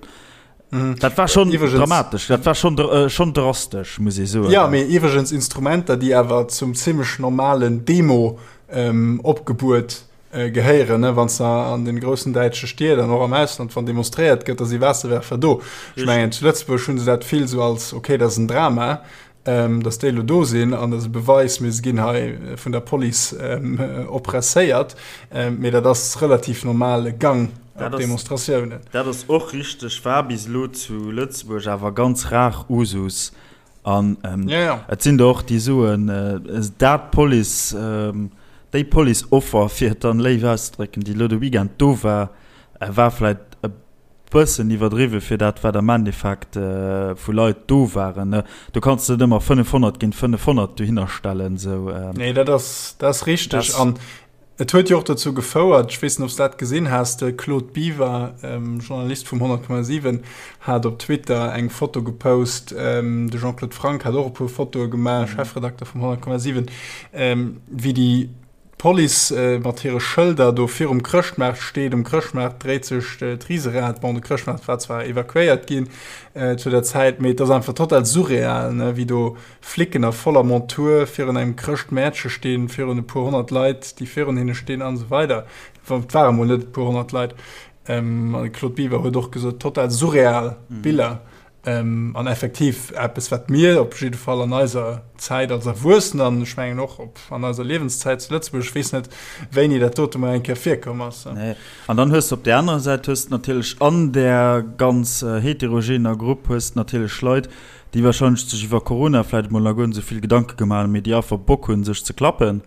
Dat war schonn dramatesch, dat war schonn schonn drastesch, muss ee soen. Jo, mee iwwregens Instrumenter, déi awer zum zimmlech normalen Demo-Opgebuet gehéieren, ne, wann s de an den groussen däitsche Stied an och am Ausland, wann demonstréiert gëtt, da si Waasserwerfer do. Ech mengen, zu Lëtzebuerg hu se dat vill sou als, okay, dat ass en Drama, datt déi elo do sinn an dat ass e Beweis, mir ginn hei vun der Police oppresséiert. Mee dat ass relativ normale Gang. op Demonstratiounen. Dat ass och richteg, war bis elo zu Lëtzebuerg awer ganz rar Usus. An et sinn der och, déi soen, dat Police, déi Police-Offer, fir et dann léif auszedrécken, déi elo de Weekend do war, war vläicht e bëssen iwwerdriwwe fir dat, wat am Endeffekt vu Leit do waren. Do kanns de net ëmmer 500 géint 500 dohinner stellen. Nee, dat ass, dat ass richteg. An Et huet jo och dozou gefouert, ech weess net, ob s de dat gesinn has, de Claude Biver, Journalist vum 100,7, hat op Twitter eng Foto gepost, de Jean-Claude Franck hat och e puer Fotoe gemaach, Chefredakter vum 100,7, wéi déi Police mat hire Schëlder do virum Chrëschtmaart steet. Um Chrëschtmaart dréit sech d'Riserad. Bon, de Chrëschtmaart war zwar evakuéiert ginn zu der Zäit, mee et ass einfach total surreal, ne, wéi do Flicken a voller Montur virun engem Chrëschtmäertche stinn, virun e puer 100 Leit, déi virun hinne stinn an esou weider. Et ware mol net e puer 100 Leit. An de Claude Biver huet och gesot, total surreal Biller. An effektiv eppes, wat mir op jidde Fall an eiser Zäit als Erwuessener, an ech mengen och op an eiser Liewenszäit zu Lëtzebuerg, ech weess net, wéini dat dote mol eng Kéier virkomm ass. Nee. An dann hues de op där anerer Säit hues de natierlech an där ganz heterogener Grupp hues de natierlech Leit, déi wahrscheinlech sech iwwer Corona vläit emol nach guer net esou vill Gedanke gemaach hunn, mee déi einfach Bock hunn, sech ze klappen.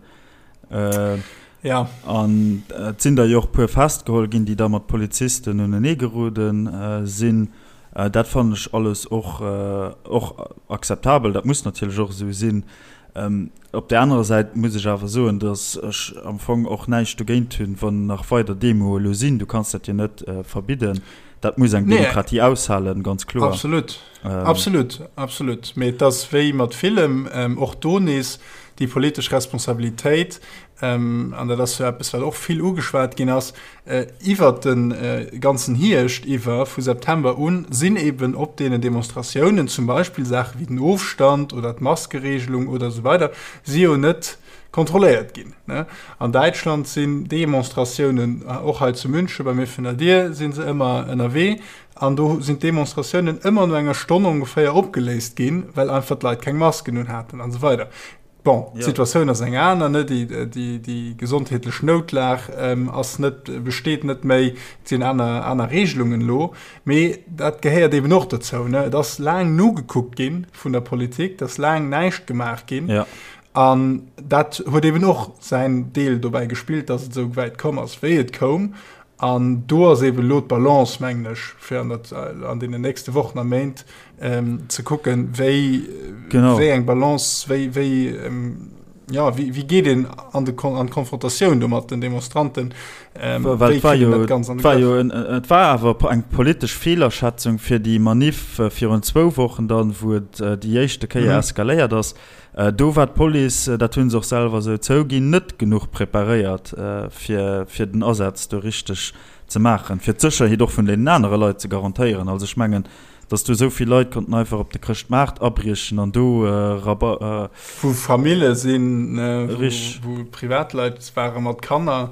Ja. An et sinn der jo och e puer festgeholl ginn, déi da mat Polizisten uneneegerode sinn. Dat fannen ech alles och, och akzeptabel. Dat muss natierlech och esou sinn. Op där anerer Säit muss ech awer soen, datt ech am Fong och näischt dogéint hunn, wann nach weider Demoe elo sinn. Du kanns dat jo net verbidden. Dat muss eng Demokratie aushalen, ganz kloer. Absolut, absolut, absolut. Mee et ass wéi mat villem, och do nees déi politesch Responsabilitéit, an dat ass jo eppes, wat och vill ugeschwat ginn ass iwwert de ganzen Hierscht iwwer, vu September un, sinn eben op deenen Demonstratiounen zum Beispill Saache wéi den Ofstand oder d'Maskeregelung oder esou weider si jo net kontrolléiert ginn. An Däitschland sinn Demonstratiounen, och hei zu München bei mir virun der Dier si se ëmmer ënnerwee, an do sinn d'Demonstratiounen ëmmer no enger Stonn ongeféier opgeléist ginn, well einfach d'Leit keng Masken un haten an esou weider. Bon, d'Situatioun ass eng aner, ne? Déi, déi, déi gesondheetlech Noutlag ass net, besteet net méi, et sinn aner, aner Regelungen elo. Mee dat gehéiert eben och dozou, ne? Et ass laang nogekuckt gi vun der Politik, et ass laang näischt gemaach ginn. Ja. An dat huet eben och säin Deel dobäi gespillt, datt et esou wäit komm ass, wéi et koum. An do ass eben elo d'Balance, mengen ech, fir an der, an deenen nächste Wochen a Méint ze kucken, wéi, wéi eng Balance, wéi, wéi, jo, wéi, wéi geet een an de, an d'Konfrontatioun do mat den Demonstranten, wéi kritt een dat Ganzt an de Grëff? Et war awer eng politesch Feelerschätzung fir déi Maniff virun zwou Wochen dann, wou et déi éischte Kéier eskaléiert ass. Do war d'Police, dat hu se och selwer esou zouginn, net genuch preparéiert, fir den Asaz do richteg ze maachen, fir d'Sécherheet och vun deenen anere Leit ze garantéieren. Also ech mengen, datt do esou vill Leit konnten einfach op de Chrëschtmaart abriechen an do Raba. Wou Famille sinn, wou Privatleit ware mat Kanner.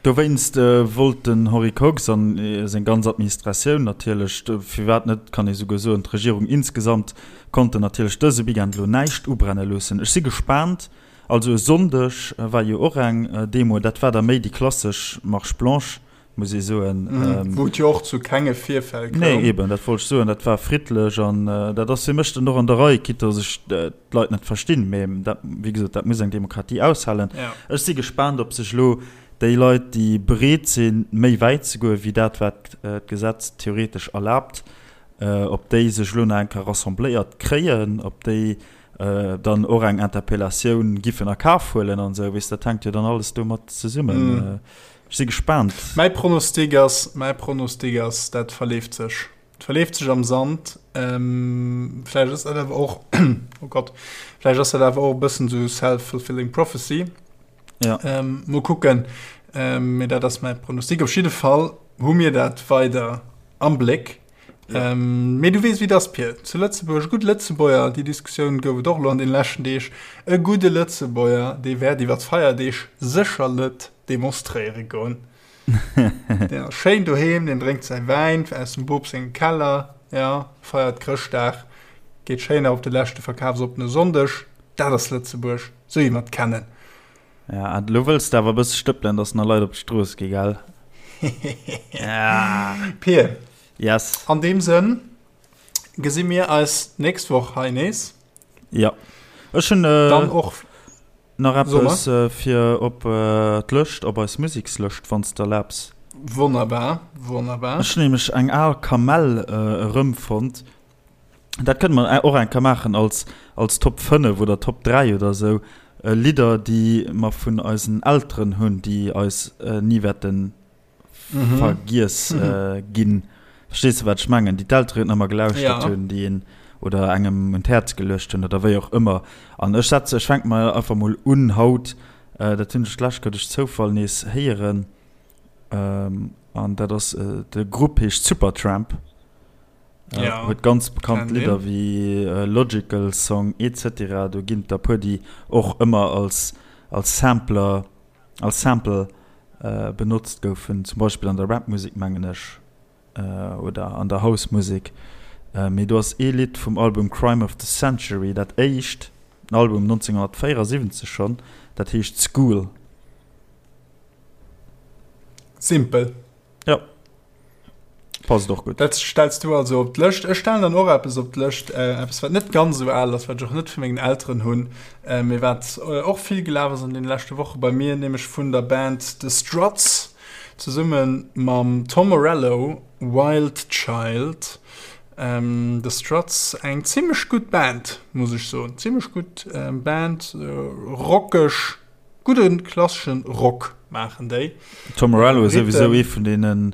Dowéinst wollt den Henri Kox an seng ganz Administratioun natierlech, firwat net kann ee souguer soen d'Regierung insgesamt, konnten natierlech dëse Weekend elo näischt ubrenne loossen. Ech si gespaant. Also e Sonndeg war jo och eng Demo, dat war da méi déi klassesch Marche blanche, muss ee soen. Wou et jo och zu kenge Virfäll koum. Nee, eben, dat wollt ech soen, dat war friddlech an dat ass fir mech dann och an der Rei, quitte datt ech d'Leit net verstinn, mee dat, wéi gesot, dat muss eng Demokratie aushalen. Ech si gespaant, ob sech elo déi Leit, déi bereet sinn, méi wäit ze goen, wéi dat, wat d'Gesetz theoretesch erlaabt, ob déi sech elo nach eng Kéier rassembléiert kréien, ob déi dann och eng Interpellatioun giffen a Kaf huelen an esou, weess, dat hänkt jo dann alles domat zesummen. Ech si gespaant. Mäi Pronostic ass, mäi Pronostic ass, dat verleeft sech. Et verleeft sech am Sand. Vläicht ass dat awer och, oh Gott, vläicht ass dat awer och e bëssen esou self-fulfilling prophecy. Ja. Mol kucken. Mee dat ass mäi Pronostic. Op jidde Fall hu mir dat weider am Bléck. Ja. Mee du weess, wéi et ass, Pir. Zu Lëtzebuerg, e gudde Lëtzebuerger, déi Diskussioun gouf et och elo an deene leschten Deeg, e gudde Lëtzebuerger, dee wäert iwwer d'Feierdeeg sécher net demonstréiere goen. Deen ass schéin doheem, deen drénkt säi Wäin aus dem Bop sengem Keller, ja, feiert Chrëschtdag, geet schéin nach op de leschte verkafsoppene Sonndeg. Dat ass Lëtzebuerg, sou wéi mer et kennen. Ja, an elo wëlls de awer e bësse stëppelen, dass nach Leit op d'Strooss gi, gell? Pir. Yes. An deem Sënn gesi mir eis d'nächst Woch hei nees. Ja. Ech hunn äh, dann och nach eppes äh, fir op äh, d'Lëscht, op eis Musekslëscht, wann s de erlaabs. Wonnerbar, wonnerbar. Ech hunn nämlech eng al Kamell äh, erëmfonnt. Dat kënne mer och eng Kéier maachen als, als Top 5 oder Top 3 oder esou, Lidder, déi mer vun eisen Elteren hunn, déi eis ni wäerte vergiess ginn. Verstees de, wat ech mengen? Déi d'Elteren ëmmer gelauschtert hunn, déi een oder engem un d'Häerz geluecht hunn oder wéi och ëmmer. An ech setze, ech fänke mol einfach mol un haut, dat hunn ech d'lescht Kéier duerch Zoufall nees héieren, an dat ass, de Grupp heescht Supertramp. Ja, huet ganz bekannt Lidder wéi Logical Song etc. Do ginn et der puer déi och ëmmer als als Sampler als Sample benotzt goufen, zum Beispill an der Rap-Musek mengen ech oder an der House-Musek. Mee do ass ee Lidd vum Album Crime of the Century, dat éischt Album 1974 schonn, dat heescht School. Simpel. Ja. Passt och gutt. Dat stells du also op d'Lëscht. Ech stellen dann och eppes op d'Lëscht, äh, eppes wat net ganz esou al ass, wat ech och net vu mengen Elteren hunn, äh, mee wat äh, och vill gelaf ass an den leschte Woche bei mir, nämlech vun der Band The Struts zesumme mam Tom Morello, Wild Child. Ähm, The Struts, eng zimmlech gutt Band, muss ech soen. Zimmlech gutt äh, Band, äh, rockeg. Gudden klasseschen Rock maachen déi. Tom Morello ass souwisou ee vun deene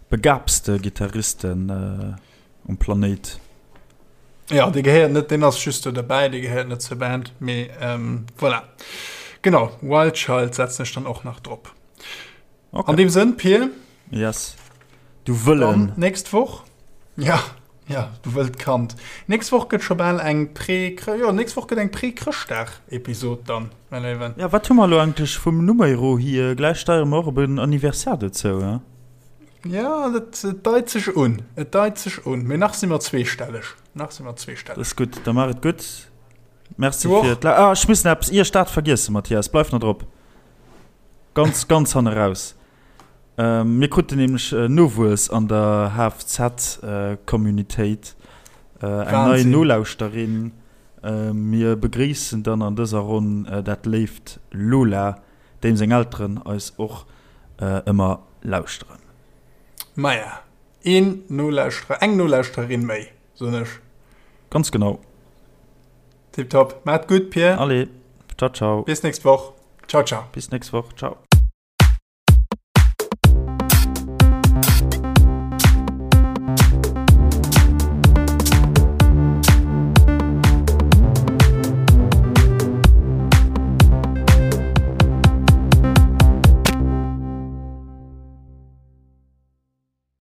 begabste Gittaristen um Planéit. Jo, dee gehéiert net, deen ass just do derbäi, dee gehéiert net zur Band, mee voilà. Genau, Wild Child setzen ech dann och nach drop. Okay. An deem Sënn, Pir. Yes. Du Wëllen. Dann nächst Woch. Ja, ja, du wëllt Kand. Nächst Woch gëtt scho bal eng Pré, jo, nächst Woch gëtt eng Pré-Chrëschtdag-Episod dann, mäi Léiwen. Ja, wat hu mer elo eigentlech vum Numero hier? Gläich steiere mer och op en Anniversaire dozou, he? Ja, dat et deit sech un. Et deit sech un. Mee nach si mer zweestelleg. Nach si mer zweestelleg. Dat ass gutt. Da maach et gutt. Merci fir d'La. Ah, ech muss nach eppes, ier ech dat vergiessen, Mathias, bleif nach drop. Ganz, ganz hanne raus. Mir kruten nämlech Nowuess an der HFZ-Communitéit, eng nei Nolauschterin. Mir begréissen dann an dëser Ronn dat léift Lola, deem seng Elteren eis och ëmmer lauschteren. Maja, een Nolauschterer, eng Nolauschtererin méi, soen ech. Ganz genau. Tiptop. Maat gutt, Pir. Allez, ciao, ciao. Bis nächst Woch. Ciao, ciao. Bis nächst Woch, ciao.